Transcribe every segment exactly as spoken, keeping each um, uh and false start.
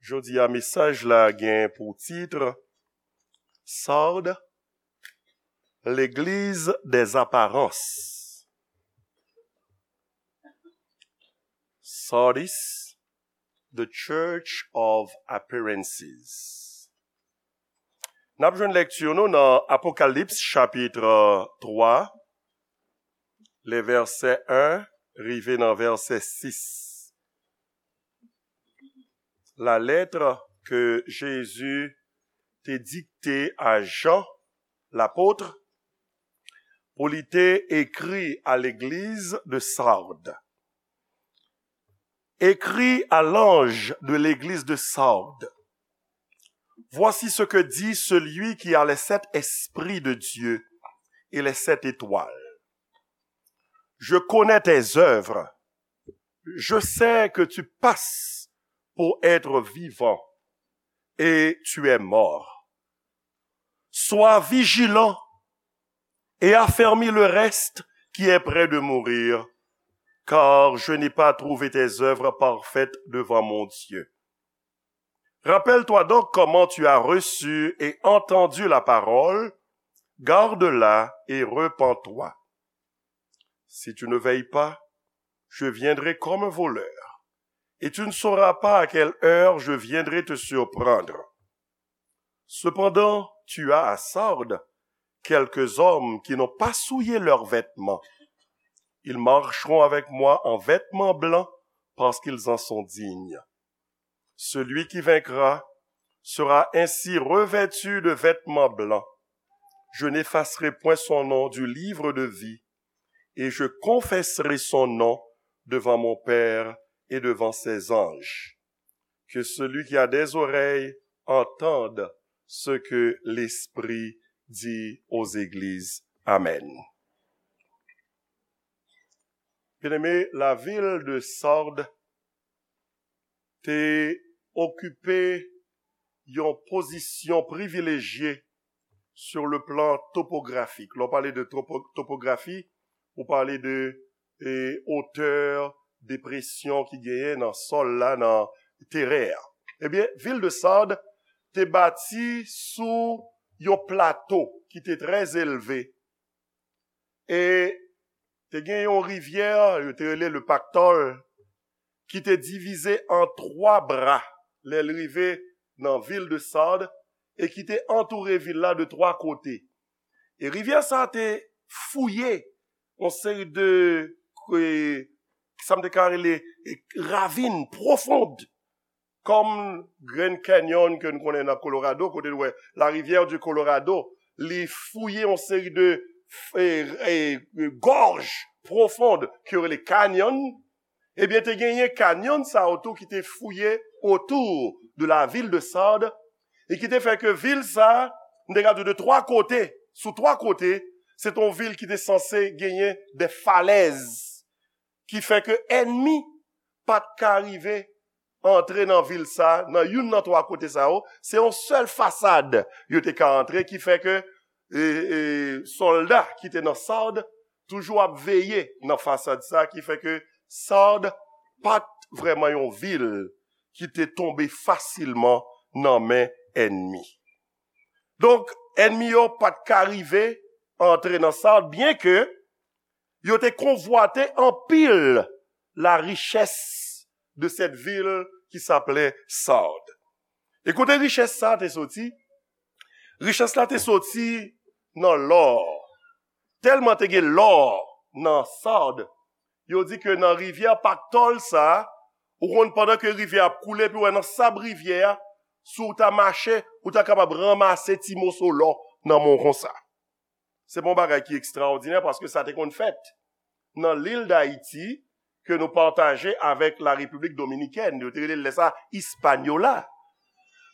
Jodi a, mesaj la gen pou tit Sardes, l'église des apparences. Sardis, the church of appearances. N ap jwenn lekti nou nan Apokalips chapit twa, le vèsè en rive nan vèsè sis. La lettre que Jésus te dikte a Jan lapot pou li te ekri a legliz de Sardes. Écris à l'ange de l'église de Sardes. Voici ce que dit celui qui a les sept esprits de Dieu et les sept étoiles. Je connais tes œuvres. Je sais que tu passes pour être vivant et tu es mort. Sois vigilant et affermis le reste qui est près de mourir, car je n'ai pas trouvé tes œuvres parfaites devant mon Dieu. Rappelle-toi donc comment tu as reçu et entendu la parole, garde-la et repens-toi. Si tu ne veilles pas, je viendrai comme un voleur, et tu ne sauras pas à quelle heure je viendrai te surprendre. Cependant, tu as à Sardes quelques hommes qui n'ont pas souillé leurs vêtements. Ils marcheront avec moi en vêtements blancs parce qu'ils en sont dignes. Celui qui vaincra sera ainsi revêtu de vêtements blancs. Je n'effacerai point son nom du livre de vie, et je confesserai son nom devant mon Père et devant ses anges. Que celui qui a des oreilles entende ce que l'Esprit dit aux églises. Amen. Byeneme, lavil de Sard te okipe yon pozisyon privilejye sur le plan topografik. Lè w pale de topo-, topografi, ou pale de, e, otè, depresyon ki genyen nan sòl la, nan teren an. Ebyen, vil de Sard te bati sou yon plato ki te trè elve. E te gen yon rivyè, yo te rele le Paktòl, ki te divize an twa bra lè l rive nan vil de Sard e ki te antoure vil la de twa kote. E rivyè sa a te fouye yon seri de, e, sa m te ka rele, e, ravin pwofon, kòm Grand Canyon ke nou konnen nan Colorado, kote nou wè la rivière du Colorado, li fouye yon seri de, e, e, gòj pwofon ke yo rele canyon. Ebyen, te genyen canyon sa yo tou ki te fouye autour de la ville de Sard, e ki te fè ke vil sa, m te ka di de twa kote, sou twa kote, se te yon vil ki te sanse genyen de falèz, ki fè ke ènmi pa t ka rive antre nan vil sa, nan youn nan twa kote sa yo, se yon sèl fasad yo te ka antre, ki fè ke, e, e, sòlda ki te nan Sard toujou ap veye nan fasad sa, ki fè ke Sard pa t vrèman yon vil ki te tonbe fasilman nan men ènmi. Donk, ènmi yo pa t ka rive antre nan Sard, byenke yo te konvwate anpil la richès de cette ville qui s'appelait Sard. E kote richès sa te soti? Richès la te soti nan lò. Tèlman te gen lò nan Sard, yo di ke nan rivyè Paktòl sa, ou konn pandan ke rivyè ap koule, epi w wè nan sab rivyè a, si w ta mache, ou ta kapab ranmase ti moso lò nan men w konsa. Se pa yon bagay ki ekstraòdinè paske sa te konn fèt nan lil Dayiti ke nou pataje avèk la Repiblik Dominikèn. Yo te rele lè sa Hispaniola.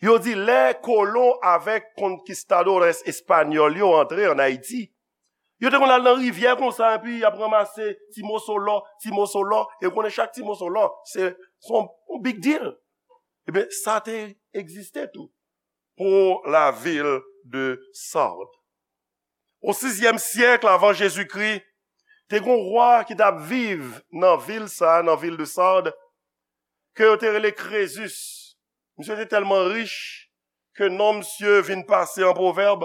Yo di lè kolon avèk konkistadores espanyòl yo antre ann Ayiti, yo te konn al nan rivyè konsa, epi y ap ranmase ti moso lò, ti moso lò, e w konnen chak ti moso lò, se, se yon, yon big deal. Ebyen, sa te egziste tou pour la ville de Sardes. O sizyèm syèk avan Jezikri, te gen yon wa ki t ap viv nan vil sa, nan vil de Sard, ke yo te rele Krezus. Misye te tèlman rich ke non misye vin pase an pwovèb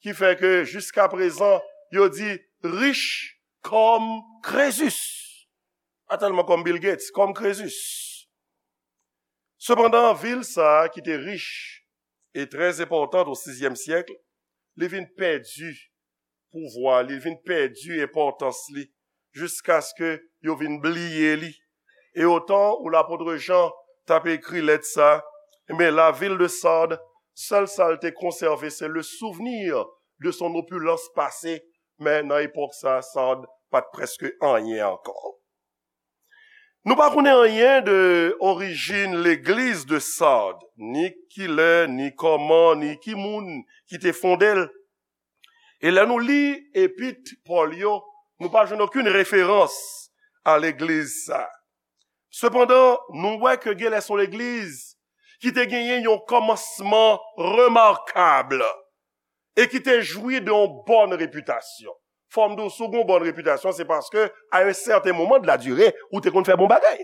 ki fè ke jiskaprezan yo di rich kòm Krezus. Pa tèlman kòm Bill Gates, kòm Krezus. Sepandan, vil sa a ki te rich e trè enpòtan o sizyèm syèk, li vin pèdi pouvwa li, li vin pèdi enpòtans li, jiskaske yo vin bliye li. E otan ou lapot Jan t ap ekri lèt sa, men la ville de Sardes, sèl sa l te konsève, se le souvenir de son opulence passée, men nan epòk sa, Sardes pa t prèske anyen ankò. Nou pa konnen anyen de orijin legliz de Sardes, ni kilè, ni kòman, ni ki moun ki te fonde l. E lè nou li epit Pòl yo, nou pa jwenn okenn referans a legliz sa. Sepandan, nou wè ke genlè se yon legliz ki te genyen yon kòmansman remakab e ki te jwi de yon bòn repitasyon. Fò m di w, si w gen yon bòn repitasyon, se paske, à un certain moment de la durée, ou te konn fè bon bagay.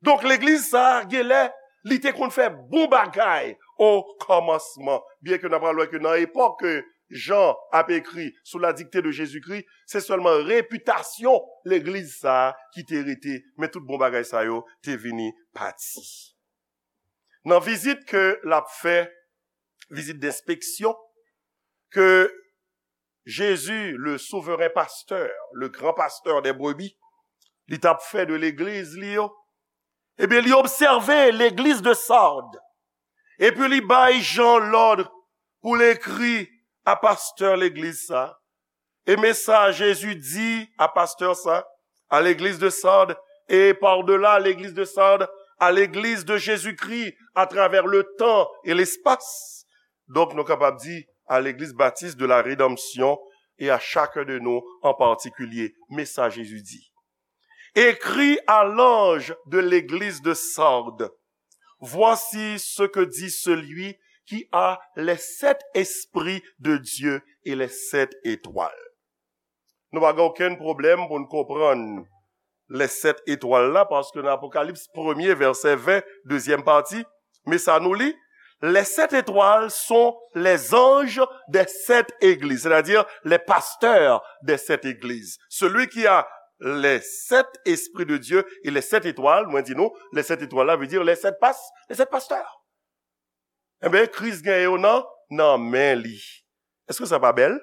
Donk, legliz sa a, genlè, li te konn fè bon bagay o kòmansman. Byen ke n ap pral wè ke nan epòk ke Jan ap ekri sou la dikte de Jezikri, se sèlman repitasyon legliz sa a ki te rete, men tout bon bagay sa yo te vini pati. Nan vizit ke l ap fè, vizit denspeksyon, ke Jezi, le souveren pastè, le gran pastè dè brebi, li t ap fè de legliz li yo, ebyen, li obsève legliz de Sardes. Epi li bay Jan lòd pou l ekri a pastè legliz sa. E men sa Jezi di a pastè sa, à l'église de Sardes, et par-delà l'église de Sardes, à l'église de Jésus-Christ, à travers le temps et l'espace. Donk, nou kapab di, à l'église baptiste de la rédemption et à chacun de nous en particulier. Men sa Jezi di. Écris à l'ange de l'église de Sardes, voici ce que dit celui qui a les sept esprits de Dieu et les sept étoiles. Nou pa gen okenn pwoblèm pou n konprann les sept étoiles la, paske nan Apokalips premye, vèsè ven, dezyèm pati, men sa nou li, les sept étoiles sont les anges des sept églises, c'est-à-dire les pasteurs des sept églises. Celui qui a les sept esprits de Dieu et les sept étoiles, mwen di nou, les sept étoiles la vle di les sept pas-, les sept pasteurs. Enben, Kris gen yo nan, nan men li. Èske sa pa bèl?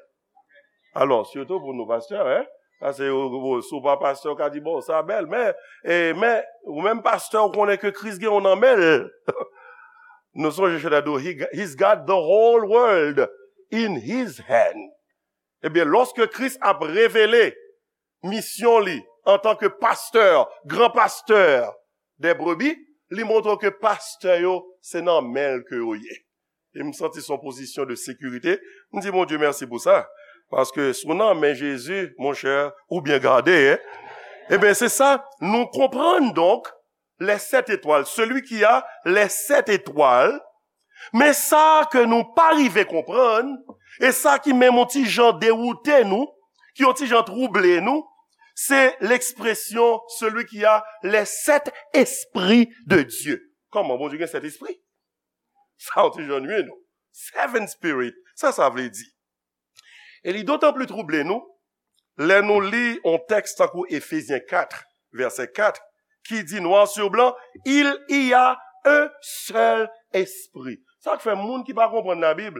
Alò, sitou pou nou pastè, en? Paske ou, ou, si w pa pastè, ou ka di, bon, sa bèl, men, e, men, ou menm pastè, ou konnen ke Kris gen w nan men l. Nou sonje chante a di, he, he's got the whole world in his hand. Ebyen, lòske Kris ap revele misyon li antanke pastè, gran pastè dè brebi, li montre w ke pastè yo, se nan men l ke yo ye. E m santi se yon pozisyon de sekirite. M di Bondye mèsi pou sa. Paske si w nan men Jezi, monchè, ou byen gade, en. Ebyen, se sa, nou konprann donk, les sept étoiles, celui qui a les sept étoiles, men sa ke nou pa rive konprann, e sa ki menm yon ti jan dewoute nou, ki yon ti jan twouble nou, se l'expression celui qui a les sept esprits de Dieu. Kòman Bondye gen sèt espri? Sa yon ti jan nwi nou. Seven spirit, sa sa vle di? E li dotan pli twouble nou, lè nou li yon tèks tankou Efezyen kat, vèsè kat, ki di noir sur blanc, il y a un seul esprit. Sa k fè moun ki pa konprann Labib,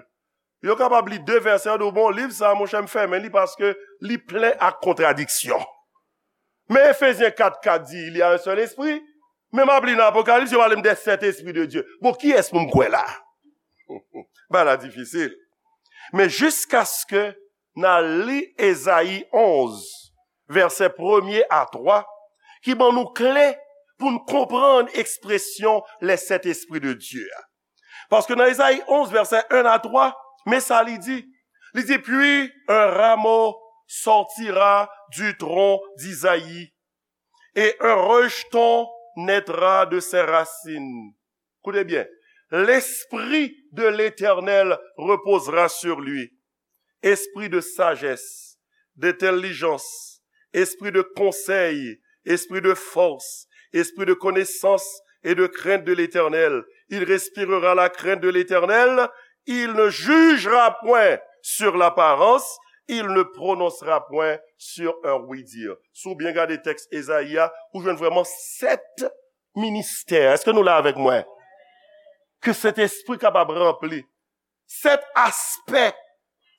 yo kapab li de vèsè, yo di w, bon, liv sa, monchè, m fèmen li paske li plen ak kontradiksyon. Men Efezyen kat kat di, il y a un seul esprit. Men m ap li nan Apokalips, yo pale m de sèt espri de Dye. Bon, kiyès pou m kwè la? Bagay la difisil. Men jiskaske n al li Ezayi onz, vèsè premye a twa, ki ban nou kle pou n konprann ekspresyon les sept esprits de Dieu a. Paske nan Ezayi onz, vèsè en a twa, men sa li di. Li di, puis un rameau sortira du tronc d'Isaïe, et un rejeton naîtra de ses racines. Koute byen. L'esprit de l'Éternel reposera sur lui. Esprit de sagesse, d'intelligence, esprit de conseil, esprit de force, esprit de connaissance et de crainte de l'Éternel. Il respirera la crainte de l'Éternel. Il ne jugera point sur l'apparence. Il ne prononcera point sur un oui-dire. Si w byen gade tèks Ezayi a, ou jwenn vrèman sèt ministè. Èske nou la avèk mwen? Ke Sentespri kapab ranpli. Sèt aspè,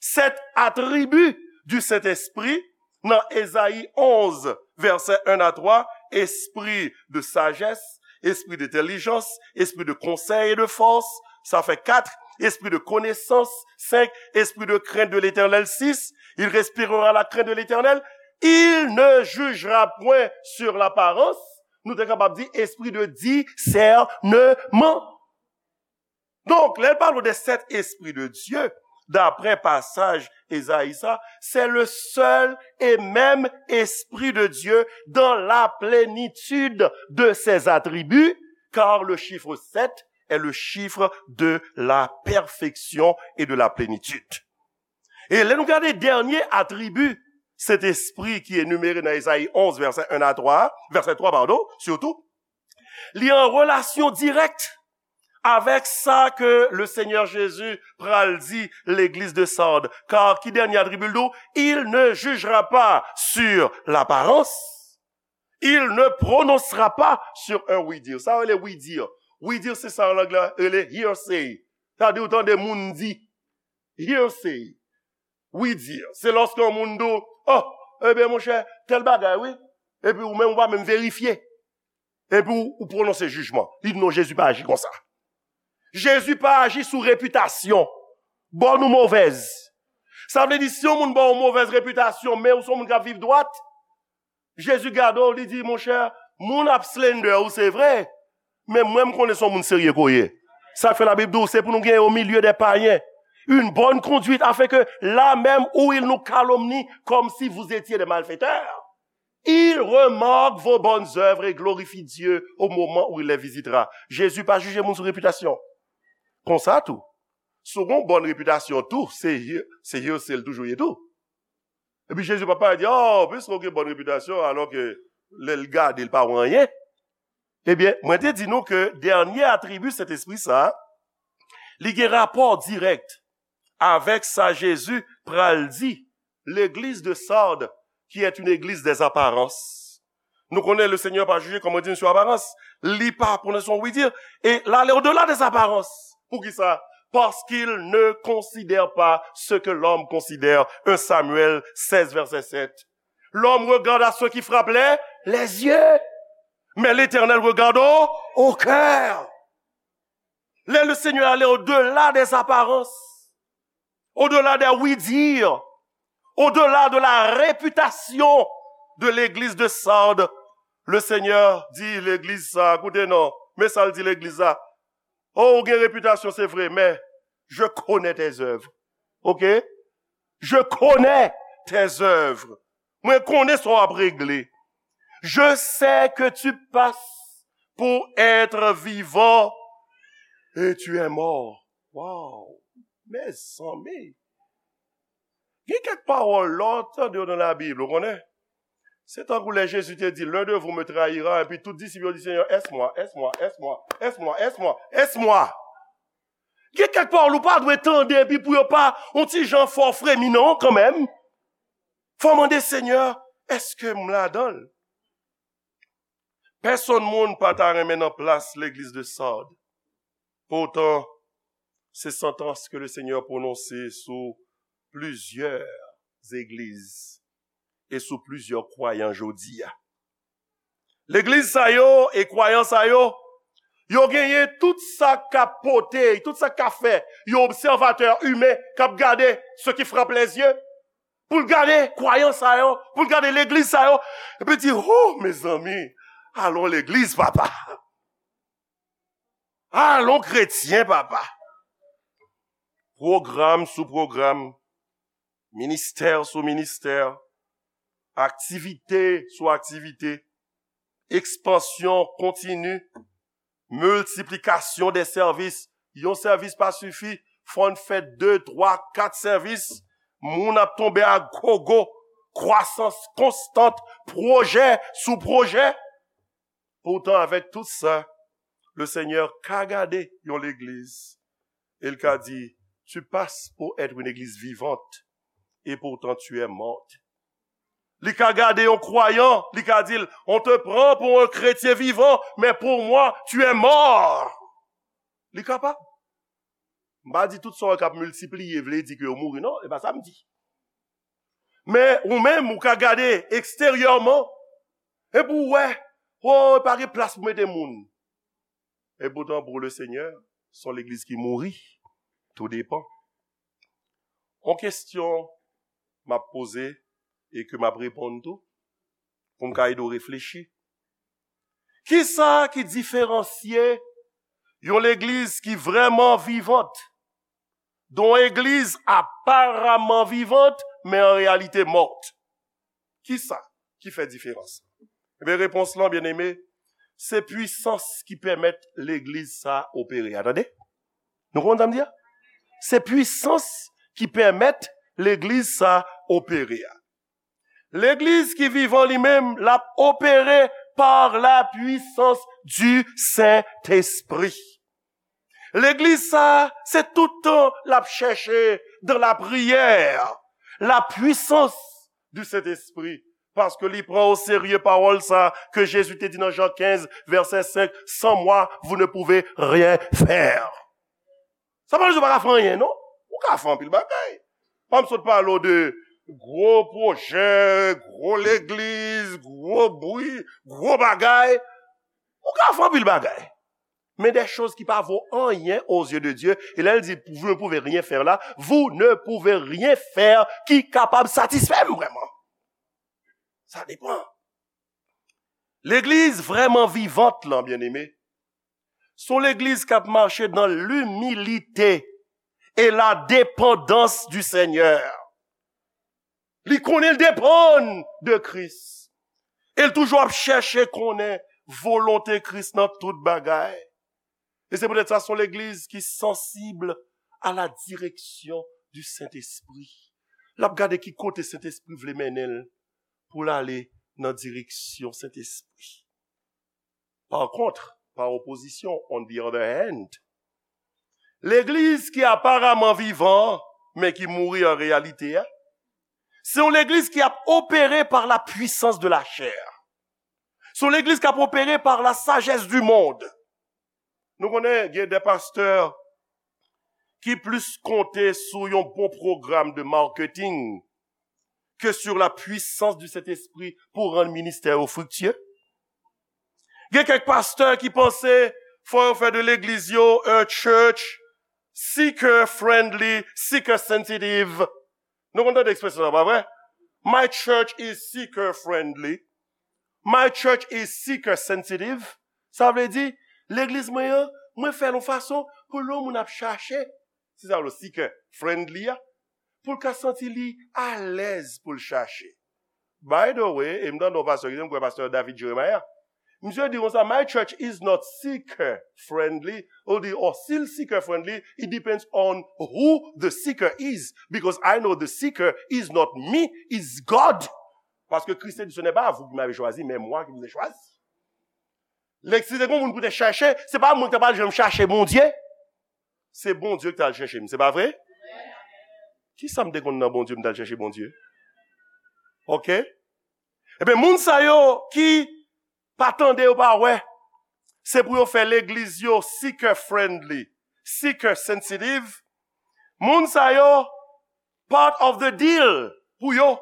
sèt atribi du Saint-Esprit nan Ezayi onze, vèsè un à trois, espri de sajès, espri de entèlijans, espri de konsèy e de fòs, sa fè kat, espri de konesans, senk, espri de krent de Letènèl, sis, il respirera la crainte de l'Éternel, il ne jugera point sur l'apparence, nou te kapab di espri de disèneman. Donk, lè l pale de sèt espri de Dye, daprè pasaj Ezayi sa, c'est le seul et même Esprit de Dieu dans la plénitude de ses attributs, car le chiffre sept est le chiffre de la perfection et de la plénitude. E lè nou gade dènye atribi Sentespri ki enimere nan Ezayi onze, vèsè un à trois, vèsè twa, padon, sitou, li an relasyon dirèk avèk sa ke le Seigneur Jésus pral di legliz de Sard. Kar ki dènye atribi l tou? Il ne jugera pas sur l'apparence. Il ne prononcera pas sur un oui-dire. Sa rele oui-dire. Oui-dire se sa an lang la rele hearsay. Sa di ou tande moun di. Hearsay. Oui-dire. Se lòske yon moun di w, oh, ebyen monchè, tèl bagay wi. Epi ou menm ou pa menm verifye. Epi ou, ou pwononse jijman. Li di non, Jezi pa aji konsa. Jezi pa aji sou repitasyon, bòn ou movèz. Sa vle di si yon moun ba w yon movèz repitasyon, men ou se yon moun k ap viv dwat, Jezi gade w, li di, monchè, moun ap slander ou, se vre, men mwen m konnen se yon moun serye ke w ye. Sa k fè Labib di w, se pou nou gen au milieu des païens une bonne conduite, afin que là même où ils nous calomnient comme si vous étiez des malfaiteurs, ils remarquent vos bonnes œuvres et glorifient Dieu au moment où il les visitera. Jezi pa jije moun sou repitasyon. Konsa tou, si w gen yon bòn repitasyon tou, se, se hearsay l toujou ye tou. Epi Jezi pa pale di, oh, piske w gen bòn repitasyon, alò ke lè l gade, l pa wè anyen. Ebyen, mwen te di nou ke dènye atribi Sentespri sa a, li gen rapò dirèk avèk sa Jezi pral di legliz de Sard, qui est une église des apparences. Nou konnen le Seigneur pa jije, kòm mwen di, sou aparans. Li pa pwononse yon oui-dire. E l ale au-delà des apparences. Poukisa? Parce qu'il ne considère pas ce que l'homme considère. Un Samuel seize, verset sept. L'homme regarde à ce qui frappe les, les yeux. Mais l'Éternel regarde au, au cœur. Lè le Seigneur ale au-delà des apparences, au-delà des oui-dire, au-delà de la réputation de l'église de Sard, le Seigneur di legliz sa, koute non, men sa l di legliz la. Oh, ou gen repitasyon, se vre, men je connais tes œuvres. Ok? Je connais tes œuvres. Mwen konnen sa w ap regle. Je sais que tu passes pour être vivant et tu es mort. Wow! Mezanmi! Gen kèk pawòl lè w tande yo nan Labib, ou konnen? Se tankou lè Jezi te di, l'un de vous me trahira, epi tout disip yo di, Seigneur, est-ce moi, est-ce moi, est-ce moi, est-ce moi, est-ce moi, est-ce moi? Gen kèk pawòl ou pa dwe tande epi pou yo pa yon ti jan fè w fremi non kanmenm. Fò w mande, Seigneur, èske m ladan l? Pèsonn moun pa ta renmen nan plas legliz de Sard. Poutan, se santans ke le Seigneur pwononse sou plizyè legliz e sou plizyè kwayan jodi a. Legliz sa yo e kwayan sa yo, yo genyen tout sa k ap pote, tout sa k ka fè yon obsèvatè imen k ap gade ce qui frappe les yeux, pou l gade kwayan sa yo, pou l gade legliz sa yo, epi di, oh, mezanmi, alon legliz, papa. Alon kretyen, papa. Pwogram sou pwogram, ministè sou ministè, aktivite sou aktivite, ekspansyon kontini, miltiplikasyon de sèvis. Yon sèvis pa sifi, fò n fè de, twa, kat sèvis. Moun ap tonbe a gogo, kwasans konstant, pwojè sou pwojè. Poutan, avèk tout sa, Le Seigneur ka gade yon legliz, e l ka di, tu passes pour être une église vivante, et pourtant tu es morte. Li ka gade yon kwayan, li ka di l, on te prend pour un chrétien vivant, mais pour moi, tu es mort. Li kapab. M pa di tout sa w wè k ap miltipliye vle di ke yo mouri, non, e pa sa m di. Men ou menm, ou ka gade eksteryèman, epi w wè, oh, pa gen plas pou mete moun. E poutan, pour le Seigneur, se yon legliz ki mouri. Tou depan. Yon kesyon m ap poze e ke m ap reponn tou, pou m ka ede w reflechi. Kisa ki diferansye yon legliz ki vrèman vivant de yon egliz aparaman vivant, men an reyalite mòt? Kisa ki fè diferans? Ebyen, repons lan, byeneme, se pwisans ki pèmèt legliz sa opere a. Tande? Nou konprann sa m di a? Se pwisans ki pèmèt legliz sa opere a. Legliz ki vivan li menm, l ap opere par la puissance du Saint-Esprit. Legliz sa, se tout tan l ap chèche dans la prière, la puissance du Saint-Esprit, paske li pran o serye pawòl sa ke Jezi te di nan Jan kenz, vèsè senk, sans moi, vous ne pouvez rien faire. Sa pa vle di w pa ka fè anyen, non. Ou ka fè anpil bagay. Pa m sot pale w de gwo pwojè, gwo legliz, gwo bri, gwo bagay. Ou ka fè anpil bagay. Men des choses qui pa vo anyen aux yeux de Dieu. E lè l di, vous ne pouvez rien faire la, vous ne pouvez rien faire ki kapab satisfè m vrèman. Sa depan. Legliz vrèman vivant lan, byeneme, se yon legliz k ap mache dans l'humilité et la dépendance du Seigneur. Li konnen l depann de Kris. E l toujou ap chèche konnen volonte Kris nan tout bagay. E se poutèt sa, se yon legliz ki sansib à la direction du Saint-Esprit. L ap gade ki kote Sentespri vle mennen l pou l ale nan direksyon Sentespri. Pa kont, pa opozisyon, on the other hand, legliz ki aparaman vivan, men ki mouri an reyalite a, se yon legliz ki ap opere par la puissance de la chair. Se yon legliz k ap opere par la sagesse du monde. Nou konnen gen de pastè ki plis konte sou yon bon pwogram de marketing que sur la puissance du Saint-Esprit pou rann ministè yo friktye. Gen kèk pastè ki panse fò yo fè de legliz yo a church seeker friendly, seeker sensitive. Nou konn tande ekspresyon sa, pa vre? My church is seeker friendly. My church is seeker sensitive. Sa vle di, legliz mwen an, mwen fè l yon fason pou lè yon moun ap chache, se sa vle seeker friendly a, pou l ka santi li alèz pou l chache. By the way, e m tande yon pastè ki di, m kwè pastè David Jeremiah, misye di konsa, my church is not seeker friendly. Ou di, oh, si l seeker friendly, it depends on who the seeker is. Because I know the seeker is not me, is God. Paske Kris te di, ce n'est pas vous qui m'avez choisi, mais moi qui vous ai choisi. Lè si te gen moun pou te chèche, se pa mwen ki ta pral janm chache Bondye. Se Bondye ki t al chèche m, se pa vre? Kisa m te konn nan Bondye m t al chèche Bondye? Oke? Ebyen, moun sa yo ki pa tande, yo pa wè, se pou yo fè legliz yo seeker friendly, seeker sensitive. Moun sa yo, part of the deal pou yo,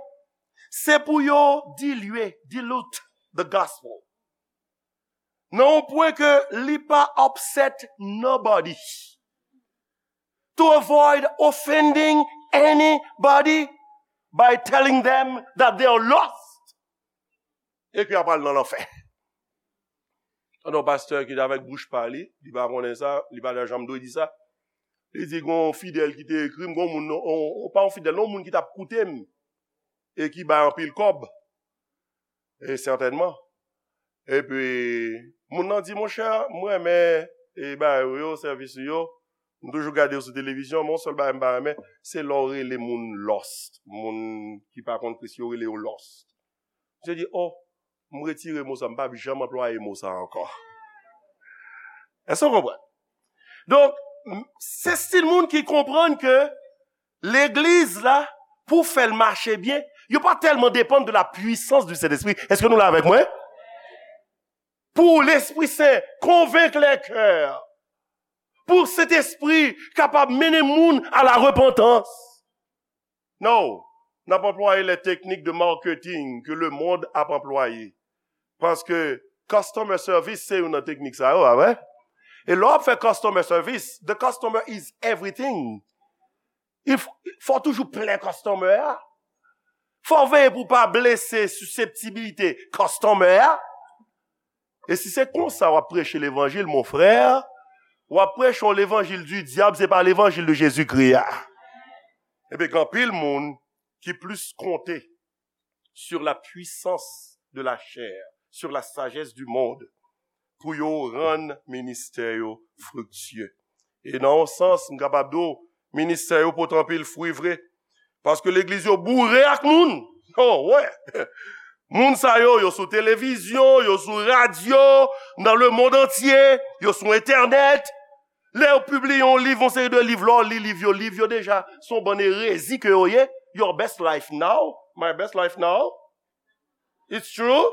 se pou yo dilye, dilute the gospel. Nan yon pwen ke li pa upset nobody. To avoid offending anybody by telling them that they are lost. E ke y ap al nan lanfè. Tande yon pastè ki avèk bouch pa li, li pa konnen sa, li pa ta janm dwe di sa. Li di, gon fidèl ki te ekri m, gon moun, on, on, pa yon fidèl, non, moun ki t ap koute m, e ki bay anpil kòb. E sètènman. Epi, moun nan di, monchè, m renmen, e, bagay ou yo, sèvis ou yo. M toujou gade w sou televizyon, men yon sèl bagay m pa renmen, se lè w rele moun lost. Moun ki pa konn Kris yo rele yo lost. Misye di, oh, m retire mo sa, m p ap janm anplwaye mo sa ankò. Èske w konprann? Donk, m- se stil moun ki konprann ke legliz la, pou fè l mache byen, yo pa tèlman depann de la puissance du Saint-Esprit. Èske nou la avèk mwen? Pou Lespri Sen konvenk lè kè, pou Sentespri kapab mennen moun a la repantans. Non, n ap anplwaye lè teknik de marketing ke le mond ap anplwaye. Paske customer service se youn nan teknik sa yo, pa vre? E lè w ap fè customer service, the customer is everything. Il faut, fò toujou plen customer a. Fò veye pou pa blese siseptibilite customer a. E si se konsa w ap preche levanjil, mon frè, w ap preche yon levanjil di dyab, se pa levanjil de Jezikri a. Ebyen, gen anpil moun ki plis konte sur la puissance de la chair, sur la sagesse du monde, pou yo rann ministè yo friktye. E nan yon sans, m kapab di w, ministè yo pote anpil fwi vre. Paske legliz yo boure ak moun. Oh, wè. Moun sa yo, yo sou televizyon, yo sou radyo, nan le monde entier, yo sou entènèt. Lè yo pibliye yon liv, yon seri de liv, lè w li liv yo, liv yo deja se yon bann erezi ke yo ye. Your best life now, my best life now. It's true.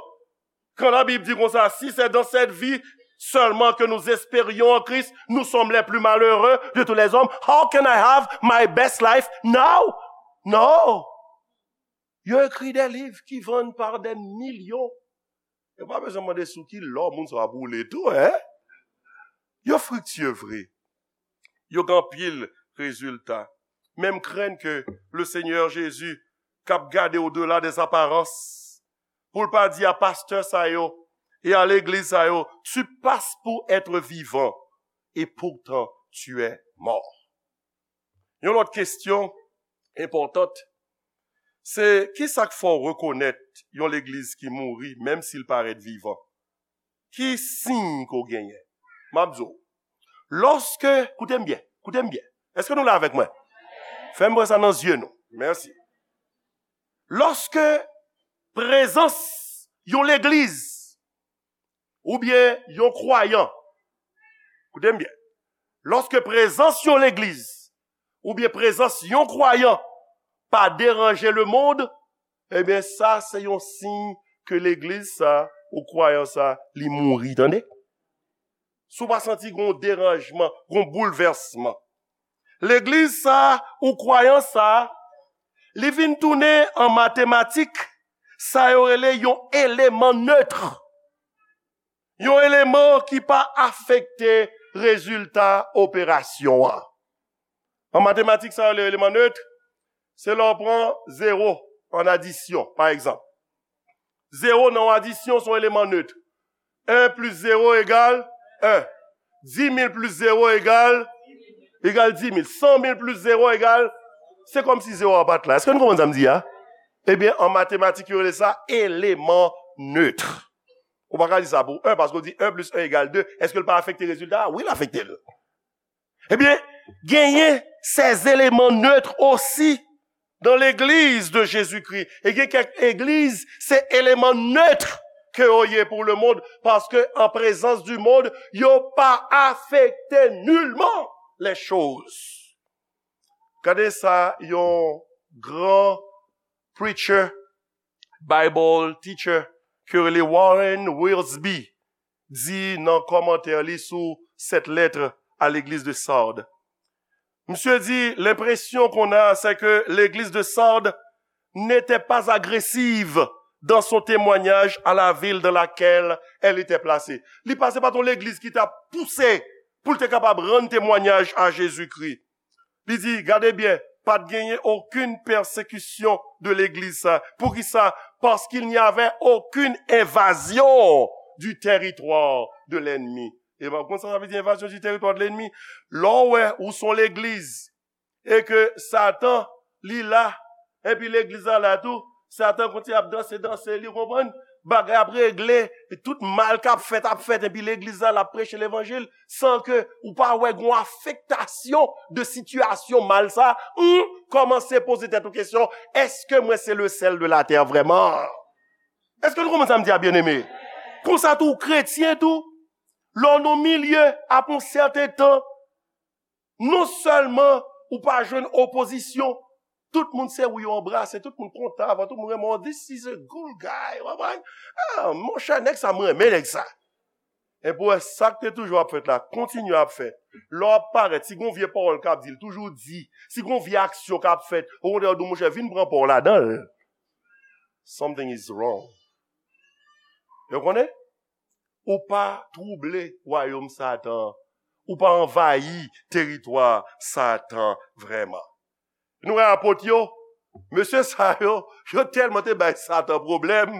Quand la Bible dit comme ça, si c'est dans cette vie seulement que nous espérions en Christ, nous sommes les plus malheureux de tous les hommes. How can I have my best life now? Non. Yo écrit des livres qui vendent par des millions. Yo pa bezwen mande sou ki lò moun sa ap woule tou, hein? Yo friktye vre. Yo gen anpil rezilta. Men m krenn ke le Seigneur Jésus, k ap gade au-delà des apparences, pou l pa di a pastè sa yo e a legliz sa yo, tu passes pour être vivant et pourtant tu es mort. Yon lòt kesyon enpòtan, se ki sa k fè w rekonèt yon legliz ki mouri, menm si l parèt vivan? Ki siy ke w genyen? M ap di w, lòske, koute m byen, koute m byen. Èske nou la avèk mwen? Fè m wè sa nan zye nou. Mèsi. Lòske prezans yon legliz oubyen yon kwayan, koute m byen, lòske prezans yon legliz oubyen prezans yon kwayan pa deranje lemonn, ebyen, sa se yon siy ke legliz sa ou kwayan sa, li mouri, tande. Si w pa santi gon deranjman, gon boulvèsman, legliz sa ou kwayan sa, li vin tounen an matematik, sa yo rele yon eleman neutre. Yon eleman ki pa afekte rezilta operasyon an. An matematik, sa yo rele eleman neutre, se lè w pran zewo an adisyon, pa egzanp. Zewo nan yon adisyon se yon eleman neutre. En plis zewo egal en. Dis mil plis zewo egal, egal dis mil. San mil plis zewo egal, se kòmsi zewo a pa t la. Èske nou konprann sa m di a? Ebyen, an matematik, yo rele sa eleman neutre. Ou pa ka di sa pou en, paske w di en plis en egal de. Èske l pa afekte rezilta a? Wi, l afekte l. Ebyen, genyen ces éléments neutres aussi dans l'Église de Jésus-Christ. E gen kèk legliz, se eleman neutre ke yo ye pou lemonn, paske an prezans di monn, yo pa afekte nilman les choses. Gade sa yon gran preacher, Bible teacher, ke yo rele Warren Wiersbe, di nan kòmantè li sou cette lettre à l'église de Sardes. Misye di, l'impression qu'on a, c'est que l'église de Sardes n'était pas agressive dans son témoignage à la ville dans laquelle elle était placée. Li pa, se pa t yon legliz ki t ap pouse pou l te kapab rann temwanyaj a Jezikri. Li di, gade byen, pa t genyen okenn pèsekisyon de legliz sa. Poukisa? Parce qu'il n'y avait aucune invasion du territoire de l'ennemi. E w konn sa sa vle di, invazyon du territoire de l'ennemi? Lè w wè ou s on legliz e ke Satan, li la, epi legliz la la tou, Satan kontinye ap danse, danse, li konprann, bagay ap regle, e tout mal k ap fèt, ap fèt, epi legliz la, l ap preche levanjil, san ke ou pa wè gon afektasyon de sitiyasyon mal sa, ou kòmanse poze tèt ou kesyon, èske mwen se le sèl de latè vrèman? Èske nou konprann sa m di a, byeneme? Konsa tou, kretyen tou, Lè w nan milye, apre yon sèten tan, non sèlman ou pa jwenn opozisyon, tout moun se wi yo anbrase, tout moun kontan avè w, tout moun renmen w, this is a good guy, w konprann? Ah, monchè, nèg sa, m renmen nèg sa. Epi w wè sa k te toujou ap fèt la, kontinye ap fèt. Lè w ap parèt, si gon vye pawòl k ap di, l toujou di, si gon vye aksyon k ap fèt, okontrè, w di, monchè, vin pran pa w ladan l. Something is wrong. Yo konnen? Ou pa twouble wayòm Satan an. Ou pa anvayi teritwa Satan vrèman. Nou wè apot yo, mesye sa yo, yo tèlman te bay Satan pwoblèm,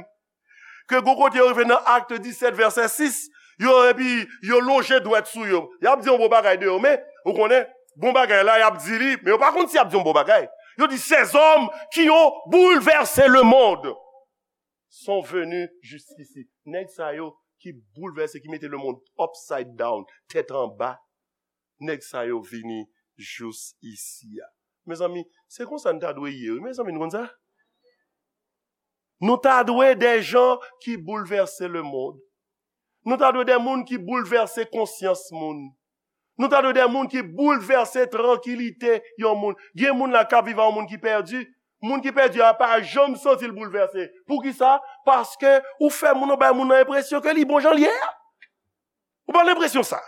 ke gon kote yo rive nan Akt disèt vèsè sis, yo, epi yo lonje dwèt sou yo. Y ap di yon bon bagay de yo, men, ou konnen, bon bagay la, y ap di li, men yo pa konn si y ap di yon bon bagay. Yo di, ces hommes qui ont bouleversé le monde sont venus jusqu'ici. Nèg sa yo ki boulvèse, ki mete lemonn upside down, tèt anba, nèg sa yo vini jous isi a. Mezanmi, se konsa n ta dwe ye, wi. Mezanmi, nou konn sa? Nou ta dwe de jan ki boulvèse lemonn. Nou ta dwe de moun ki boulvèse konsyans moun. Nou ta dwe de moun ki boulvèse trankilite yon moun. Gen moun la k ap viv ak yon moun ki pèdi. Moun ki pèdi a pa janm santi l boulvèse. Poukisa? Paske ou fè moun, ou bay moun nan enpresyon ke li bon jan l ye a. Ou pa gen enpresyon sa.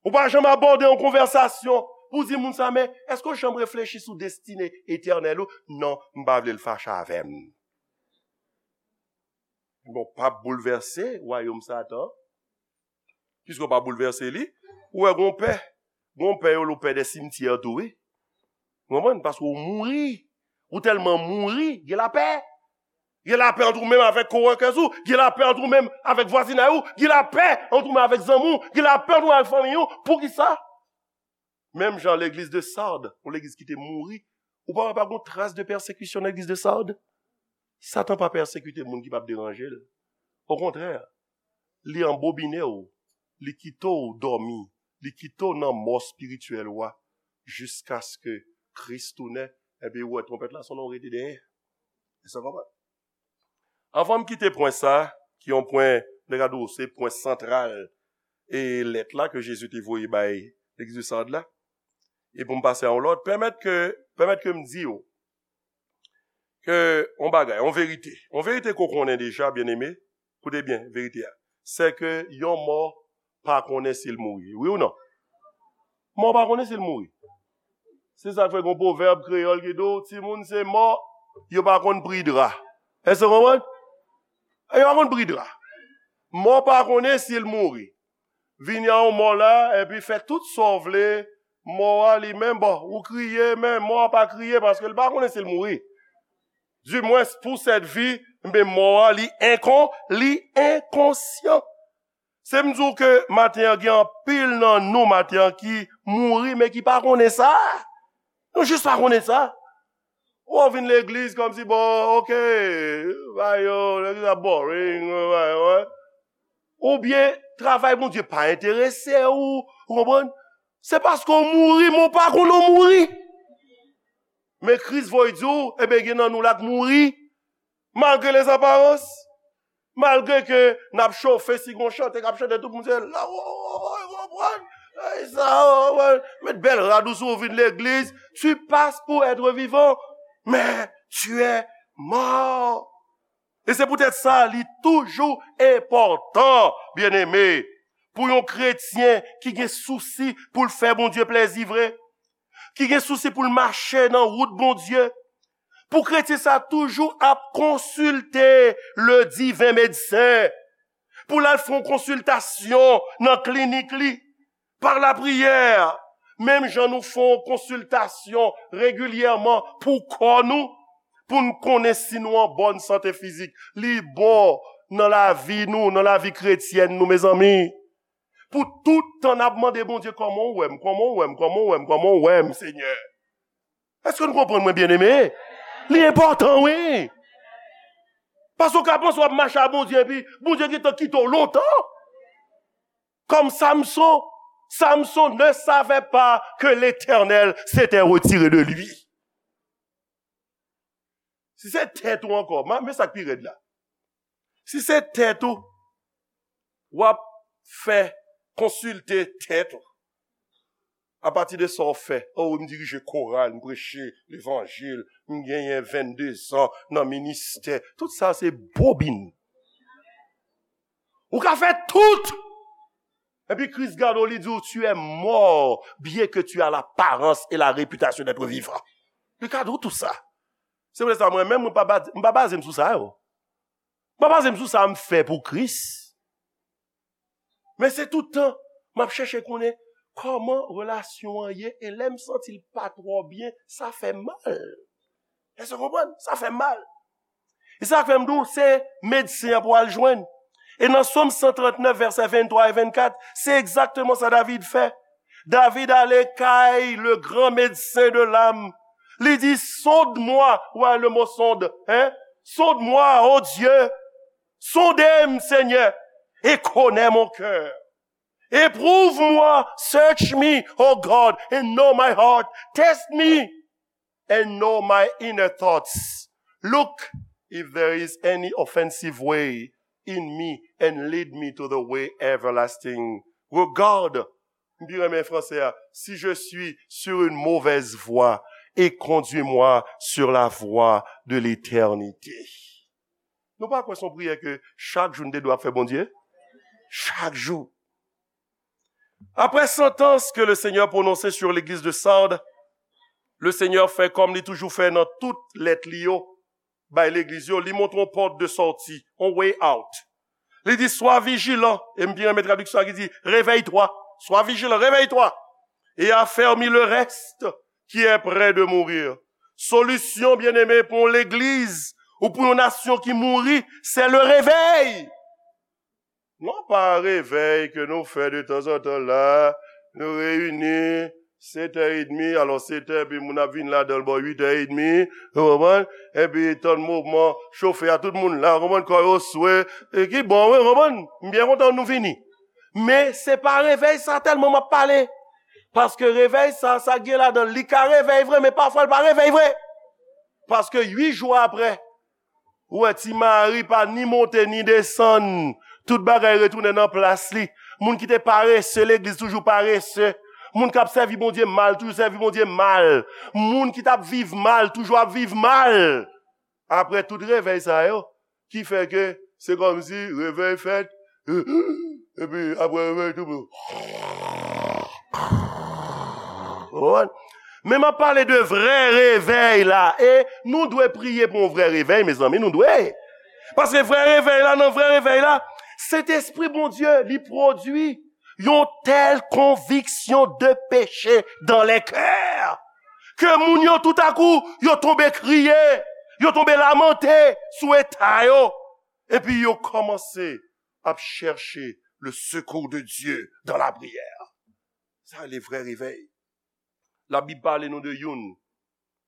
Ou pa janm abòde yon konvèsasyon pou di moun sa, men èske w janm reflechi sou destine etènèl ou? Non, m pa vle l fache avè m. Bon, p ap boulvèse wayòm Satan. Piske w pa boulvèse li, ou wè gon pè. Gon pè yo, ou pè de simtyè tou, wi. Ou konprann? Paske ou mouri. Ou tèlman mouri, gen lapè. Gen lapè ant ou menm avèk coworkers ou, gen lapè ant ou menm avèk vwazinay ou, gen lapè ant ou menm avèk zanmi w, gen lapè ant ou menm avèk fanmi ou. Poukisa? Menm jan legliz de Sard, yon legliz ki te mouri, ou pa wè pa gon tras de pèsekisyon nan legliz de Sard? Satan pa pèsekite moun ki p ap deranje l. Okontrè, li anbobine w, li kite w dòmi, li kite w nan mò espirityèl ou a, jiskaske Kris tounen, epi ou wè twonpèt la sonnen, w rete dèyè. Èske w konprann? Anvan m kite pwen sa, ki yon pwen, m te ka di w, se pwen santral, e lèt la ke Jezi te voye bay legliz de Sard la, e pou m pase a yon lòt, pèmèt ke, pèmèt ke m di w ke yon bagay, yon verite. Yon verite ke w konnen deja, byeneme, koute byen verite a. Se ke yon mò pa konnen si l mouri. Wi ou non? Mò pa konnen si l mouri. Se sa k fè gon pwovèb kreyòl ki di w, timoun se mò, yo pa konn pri dra. Èske w konprann? Yo pa konn pri dra. Mò pa konnen si l mouri. Vini a yon mò la, epi fè tout sa w vle, mò a li menm, bon, ou kriye, men mò a pa kriye paske l pa konnen si l mouri. Dimwens, pou sèt vi, men mò a, li enkon, li enkonsyan. Se m di w ke maten an, gen anpil nan nou maten an ki mouri, men ki pa konnen sa. Nou jis pa konnen sa. Ou vin legliz kòmsi, bon, oke, bay yo, legliz la boring, bay yo, hein. Oubyen, travay Bondye pa enterese w, ou konprann? Se paske w mouri, men w pa konnen w mouri. Men Kris voye di w, ebyen, gen nan nou la k mouri, malgre les apparences. Malgre ke n ap chofe, si gon chante k ap chante, tout moun se la, o, o, o, o, konprann? Ey, sa, o, o, met bèl rad ou sou, ou vin legliz. Tu passes pour être vivant, mais tu es mort. E se poutèt sa, li toujou enpòtan, byeneme, pou yon kretyen ki gen sousi pou l fè Bondye plèzi vre, ki gen sousi pou l mache nan wout Bondye, pou kretyen sa toujou ap konsilte le divin médecin, pou l al fè yon konsiltasyon nan klinik li, pa lapriyè, menm jan nou fè yon konsiltasyon regilyèman pou kò nou, pou n konnen si nou an bòn sante fizik. Li bon nan lavi nou, nan lavi kretyèn nou, mezanmi. Pou tout tan n ap mande Bondye, kòman w wè m, kòman w wè m, kòman w wè m, kòman w wè m, Senyè? Èske nou konprann mwen, byeneme? Li enpòtan, wi. Paske w ka panse w ap mache a Bondye, epi Bondye gentan kite w lontan. Comme Samson, Samson ne savait pas que l'Éternel s'était retiré de lui. Si se tèt ou ankò, ma, men sa k pi rèd la. Si se tèt ou, w ap fè konsilte tèt ou. Apati de sa w fè, oh, m dirije koral, m preche levanjil, m genyen vennde zan nan ministè. Tout sa se bobin. Ou ka fè tout! Epi Kris gade w, li di w, tu es mort, bien que tu as l'apparence et la réputation d'être vivant. Li ka di w tout sa. Se pou sa mwen menm, mwen pa ba- m pa baze m sou sa yo. M pa baze m sou sa m fè pou Kris. Men se tout tan, m ap chèche konnen kòman relasyon an ye, e lè m santi l pa twò byen, sa fè mal. Èske w konprann? Sa fè mal. E sa k fè m di w, se medsen an pou al jwenn. E nan Sòm san trant nèf, vèsè venntwa e vennkat, se egzakteman sa David fè. David ale kay le grand médecin de l'âme. Li di, sonde-moi, wè le mo sonde, hein? Sonde-moi, oh Dieu. Sonde m, Senyè, e konnen mon cœur. Éprouve-moi, search me, oh God, and know my heart. Test me and know my inner thoughts. Look if there is any offensive way in me and lead me to the way everlasting. Regarde, m pi renmen fransè a, si je suis sur une mauvaise voie, et conduis-moi sur la voie de l'éternité. Nou pa kwè se yon priyè ke chak jou n te dwe ap fè Bondye? Chak jou. Après sentence que le Seigneur prononçait sur l'église de Sardes, le Seigneur fè kòm li toujou fè nan tout lèt li yo bay legliz yo, li montre yon pòt de sòti, yon way out. Li di, sois vigilant, e m pi renmen tradiksyon ki di, réveille-toi, sois vigilant, réveille-toi, et affermis le reste qui est près de mourir. Solisyon, byeneme, pou yon legliz ou pou yon nasyon ki mouri, se le réveil. Non pa revèy ke nou fè de tanzantan la, nou reyini, sèt è edmi, alò sèt è, epi moun ap vin ladan l bò uit è edmi, ou konprann? Epi tann mouvman, chofe a, tout moun la, ou konprann, kò yo swe, e ki bon, wi, ou konprann? M byen kontan nou vini. Men se pa revèy sa tèlman m ap pale. Paske revèy sa, sa gen ladan l, li ka revèy vre, men pafwa l pa revèy vre. Paske uit jou apre, ou wè, Ti Mari pa ni monte ni desann. Tout bagay retounen nan plas li. Moun ki te parese, legliz toujou parese. Moun k ap sèvi Bondye mal, toujou sèvi Bondye mal. Moun ki t ap viv mal, toujou ap viv mal. Apre tout revèy sa yo, ki fè ke se kòmsi revèy fèt, epi apre revèy tou. Ou konprann? Men m ap pale de vrè revèy la. E nou dwe priye pou yon vrè revèy, mezanmi, nou dwe. Paske vrè revèy la, nan vrè revèy la, Sentespri Bondye, li pwodui yon tèl konviksyon de peche dans les cœurs ke moun yo toutakou, yo tonbe kriye, yo tonbe lamante sou eta yo, epi yo kòmanse ap chèche le secours de Dieu dans la prière. Sa le vrè revèy. Labib pale nou de youn.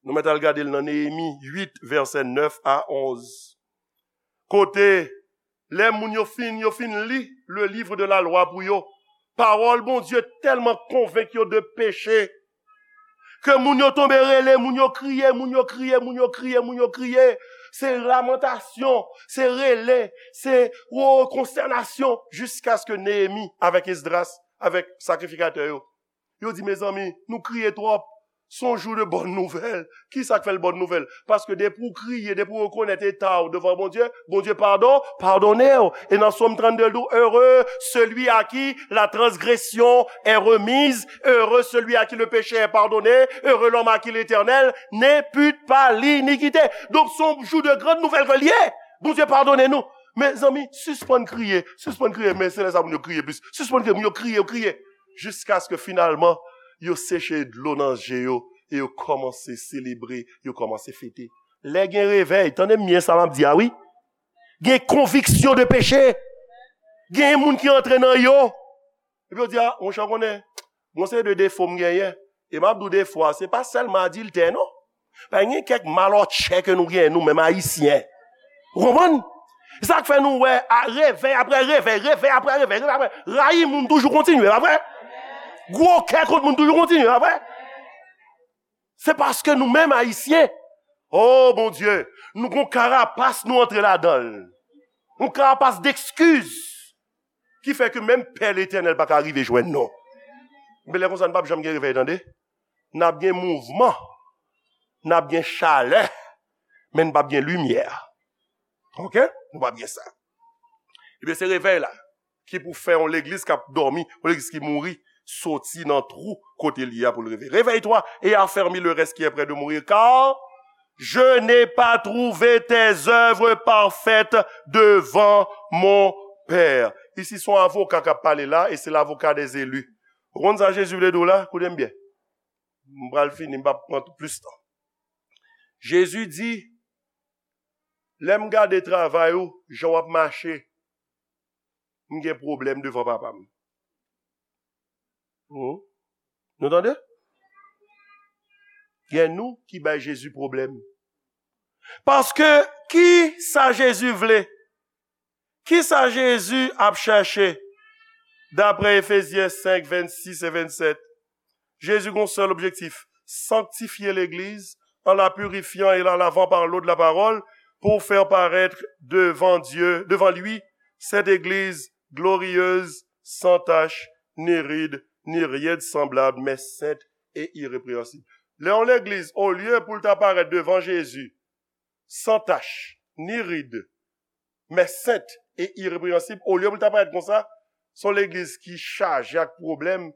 Nou mèt al gade l nan Neyemi uit, vèsè nèf a onz. Kote, lè moun yo fin, yo fin li le livre de la loi pou yo, pawòl Bondye tèlman konvenk yo de peche, ke moun yo tonbe rele, moun yo kriye, moun yo kriye, moun yo kriye, moun yo kriye. Se lamantasyon, se rele, se, o, konstènasyon, jiskaske Neyemi avèk Esdras, avèk sakrifikatè yo, yo di, mezanmi, nou kriye twòp. Se yon jou de bòn nouvèl. Kisa k fè l bòn nouvèl? Paske depi w kriye, depi w rekonèt eta w devan Bondye, Bondye padon, padone w. E nan Sòm trannde, l di w, heureux celui à qui la transgression est remise, heureux celui à qui le péché est pardonné, heureux l'homme à qui l'Éternel n'impute pas l'iniquité. Donk, se yon jou de grann nouvèl ke l ye. Bondye padone nou. Mezanmi, sispann kriye, sispann kriye, men se lè sa moun yo kriye plis. Sispann kriye, moun yo kriye, yo kriye. Jiskaske finalman, yo seche dlo nan je yo e yo kòmanse selebre, yo kòmanse fete. Lè gen revèy, tande m byen sa m ap di a wi. Gen konviksyon de peche. Gen moun ki antre nan yo. Epi yo di, a, monchè, w konnen, gon seri de defo m genyen. E m ap di w defo a, se pa sèlman adiltè, non. Pa gen kèk malòtchè ke nou genyen, nou menm Ayisyen. Ou konprann? Se sa k fè nou wè, a, revèy apre revèy, revèy apre revèy, revèy apre. Rayi moun toujou kontinye, pa vre? Gwo kè kont moun toujou kontinye, pa vre? Se paske nou menm Ayisyen, o Bondye, nou gon karapas nou antre ladan l. Yon karapas d'excuses. Ki fè ke menm Pè Letènèl pa ka rive jwenn nou. Men lè konsa, n p ap janm gen revèy, tande. N ap gen mouvman, n ap gen chalè, men n p ap gen limyè. Oke? Nou p ap gen sa. Ebyen, se revèy la ki pou fè yon legliz k ap dòmi, yon legliz ki mouri, soti nan twou kote l ye a pou l leve. Réveille-toi et affermis le reste qui est près de mourir, car je n'ai pas trouvé tes œuvres parfaites devant mon Père. Isi, se yon avoka k ap pale la, e se lavoka dèzeli. Ou konn sa Jezi vle di w la? Koute m byen. M pral fini, m p ap pran plis tan. Jezi di, lè m gade travay ou, jan w ap mache, m gen pwoblèm devan Papa m. Hmm? Nou tande? Gen nou ki bay Jezi pwoblèm. Paske ki sa Jezi vle? Ki sa Jezi ap chèche? Daprè Efezyen senk, vennsis e vennsèt, Jezi gen yon sèl objektif, sanktifye legliz an la purifiant et la lavant par l'eau de la parole, pour faire paraître devant Dieu, devant lui, cette église glorieuse, sans tache, ni ride, ni rien de semblable, mais sainte et irrépréhensible. Lè yon legliz, olye pou l ta parèt devan Jezi, san tach, ni rid, men sent e irepreyansib, olye pou l ta parèt konsa, se yon legliz ki chaje ak pwoblèm.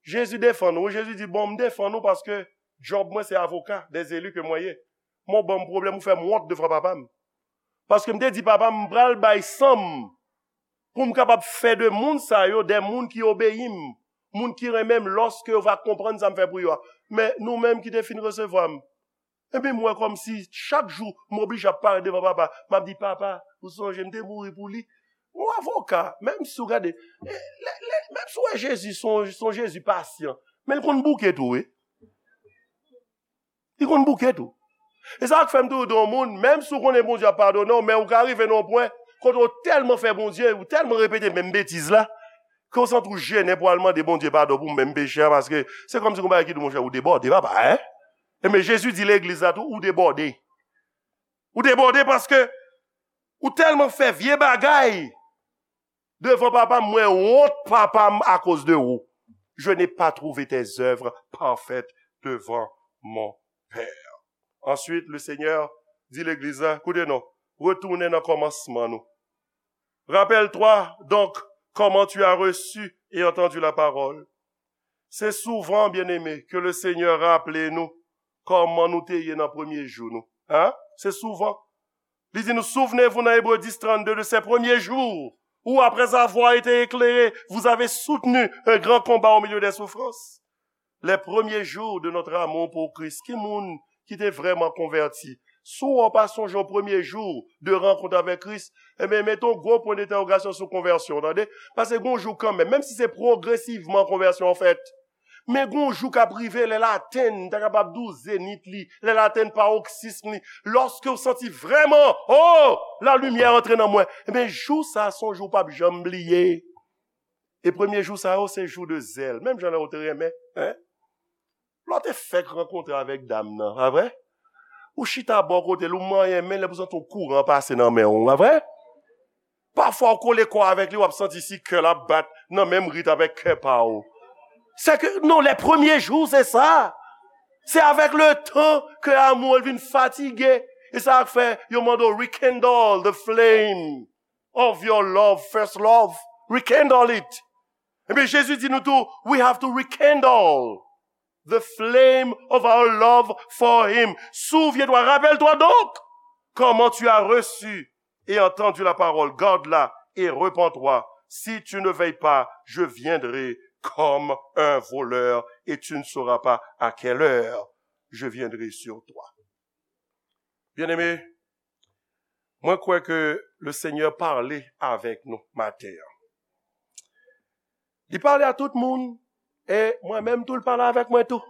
Jezi defann ou, Jezi di, bon, m defann ou paske djòb mwen se avoka dèzeli ke mwen ye. Men w ban m pwoblèm, ou fè m wont devan papa m. Paske m te di papa m, m pral bay san m pou m kapab fè de moun sa yo de moun ki obeyi m, moun ki renmen m lòske yo va konprann sa m fè pou yo a. Men nou menm ki te fin resevwa m, epi m wè kòmsi chak jou m oblije ap parèt devan papa, m ap di, papa, ou sonje m te mouri pou li? Yon avoka, menm si w gade, e, lè, lè, menm si w wè Jezi se yon, se yon Jezi pasyan, men l konn bouke tou, wi. Li konn bouke tou. E sa k fè m toujou di yon moun, menm si w konnen Bondye ap padone w, men ou ka rive nan yon pwen kote w tèlman fè Bondye, ou tèlman repete menm betiz la, ke w santi w jennen pou al mande Bondye padon pou menm peche a, paske se kòmsi gon bagay ki di w, monchè, ou debòde, papa, en? Enben, Jezi di legliz la tou, ou debòde. Ou debòde paske ou tèlman fè vye bagay devan papa m, mwen wont papa m akoz de ou. Je n'ai pas trouvé tes œuvres parfaites devant mon Père. Ensuite, le Seigneur di legliz la, koute non, retounen nan kòmansman nou. Rappelle-toi donc comment tu as reçu et entendu la parole. Se souvan, byeneme, ke le Senyè raple nou kòman nou te ye nan premye jou nou. Hein? Se souvan. Li di nou, souvenez-vous nan Ebre dis trannde, de ces premiers jours où, après avoir été éclairés, vous avez soutenu un grand combat au milieu des souffrances. Les premiers jours de notre amour pour Christ. Ki moun ki te vrèman konvèti? Si w pa sonje yon premye jou de rankont avèk Kris, enben, mete yon gwo pwen dentèwogasyon sou konvèsyon w, tande? Paske gon jou kanmenm, menm si se pwogresivman konvèsyon an fèt, men gon jou k ap rive, lè l atenn, m ta kapab di w zenit li, lè l atenn paroksism li, lòske w santi vrèman, oh, la limyè antre nan mwen, enben, jou sa a se yon jou w p ap janm bliye. E premye jou sa yo, se jou de zèl. Menm jan lè w te renmen, en? Lè w te fèk rankontre avèk dam nan, pa vre? Ou chita bò kote l, ou manyen men l, epi w santi yon kouran pase nan men w, pa vre? Pafwa, w kole kò avèk li, w ap santi si kè l ap bat nan menm rit avèk kè pa w. Se ke, non, les premiers jours, c'est ça. Se avèk letan ke amou an vin fatige. E sa k fè yo mande w rekindle the flame of your love, first love. Rekindle it. Ebyen, Jezi di nou tou, we have to rekindle the flame of our love for him. Souviens-toi, rappelle-toi donc, comment tu as reçu et entendu la parole, garde-la et repens-toi. Si tu ne veilles pas, je viendrai comme un voleur et tu ne sauras pas à quelle heure je viendrai sur toi. Byeneme, mwen kwè ke le Senyè pale avèk nou maten an. Li pale a tout moun, e mwen menm tou, l pale avèk mwen tou.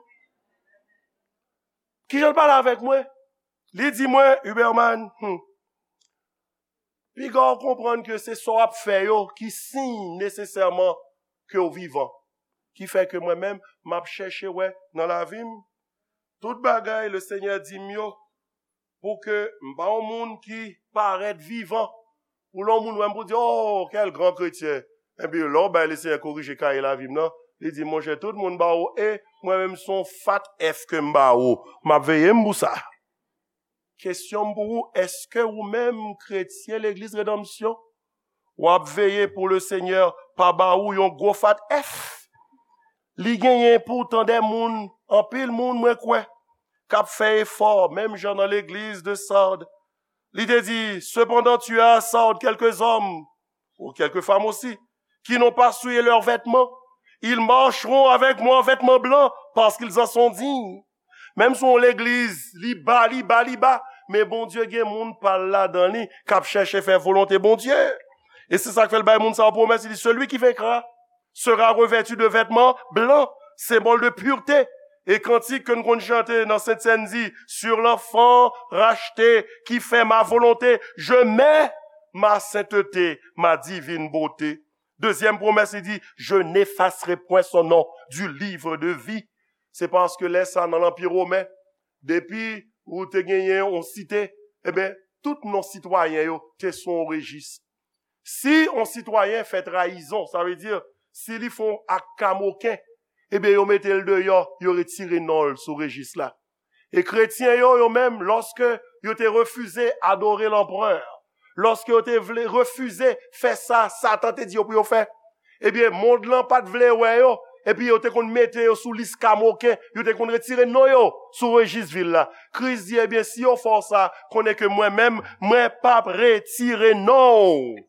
Kijan l pale avèk mwen? Li di mwen, Huberman, hmm, piga w konprann ke se sa w ap fè yo ki siy nesesèman ke w vivan. Ki fè ke mwen menm, m ap chèche wè nan lavi m, tout bagay le Senyè di m yo, pou ke m pa yon moun ki parèt vivan. Pou lè yon moun wè m pou di, oh, quel grand chrétien. Epi lè w bay Lesenyè korije kaye lavi m nan, li di, monchè, tout moun ba ou E, mwen menm se yon fat F ke m ba ou. M ap veye m pou sa. Kesyon m pou ou, èske ou menm, kretyen Legliz Redanmsyon, w ap veye pou Lesenyè pa ba ou yon gwo fat F? Li genyen poutan de moun, anpil moun, mwen kwè, k ap fè efò, menm jan nan legliz de Sard. Li te di, cependant, tu as à Sard quelques hommes, ou quelques femmes aussi, qui n'ont pas souillé leurs vêtements. Ils marcheront avec moi en vêtements blancs, parce qu'ils en sont dignes. Menm si yon legliz, li ba, li ba, li ba, men Bondye gen moun pa l ladan li, k ap chèche fè volonte Bondye. E se sa k fè l bay moun sa yo pwomès, li di, celui qui vaincra sera revêtu de vêtements blancs, symbole de pureté. E kantik ke nou konn chante nan Sent Sèn di, sur l'enfant racheté qui fait ma volonté, je mets ma sainteté, ma divine beauté. Dezyèm pwomès, li di, je n'effacerai point son nom du livre de vie. Se paske lè sa nan Lanpi Women, depi ou te genyen yon site, ebyen, tout non sitwayen yo te sou yon rejis. Si yon sitwayen fè trayizon, sa vle di, si li fè yon ak kamoken, ebyen, yo mete l deyò, yo retire non l sou rejis la. E kretyen yo, yo menm, lòske yo te refize adore lanprè, lòske yo te vle refize fè sa Satan te di yo pou yo fè, ebyen, mond lan pa t vle wè yo, epi yo te konn mete yo sou lis kamoken, yo te konn retire non yo sou rejis vil la. Kris di, ebyen, si yo fè w sa, konnen ke mwen menm, mwen p ap retire non w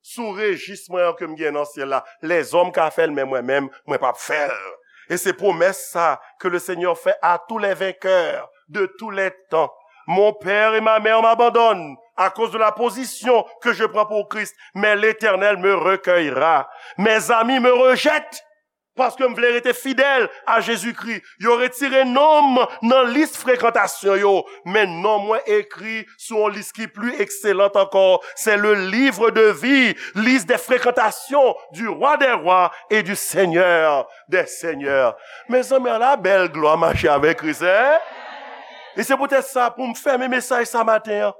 sou rejis mwen an ke m gen nan syèl la. Lèzòm ka fè l, men mwen menm, mwen p ap fè l. E se pwomès sa ke le Senyè fè à tous les vainqueurs de tous les temps. Mon père et ma mère m'abandonnent à cause de la position que je prends pour Christ, mais l'Éternel me recueillera. Mes amis me rejettent parce que m vle rete fidèl a Jezikri. Yo retire non m nan lis frekantasyon yo, men non mwen ekri sou yon lis ki pli ekselant ankò. C'est le livre de vie, liste des fréquentations du Roi des rois et du Seigneur des seigneurs. Mezanmi, ala bèl glwa mache avèk Kris, en? E se poutèt sa, pou m fèmen mesaj sa maten an,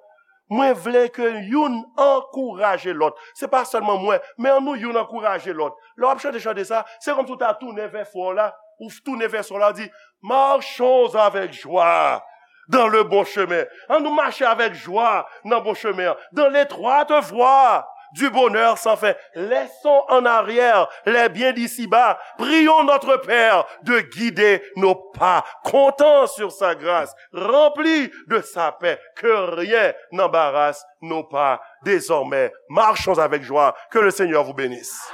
mwen vle ke youn ankouraje lòt. Se pa sèlman mwen, men ann nou youn ankouraje lòt. Lè w ap chante chante sa, se kòmsi w ta tounen vè frè w la, ou tounen vè sè w la, w di, marchons avec joie dans le bon chemin. Ann nou mache avèk jwa nan bon chemen an. Dans l'étroite voie du bonheur sans fin. Laissons en arrière les biens d'ici-bas. Prions notre Père de guider nos pas. Comptons sur sa grâce, remplis de sa paix, que rien n'embarrasse nos pas. Désormais, marchons avec joie. Que le Seigneur vous bénisse.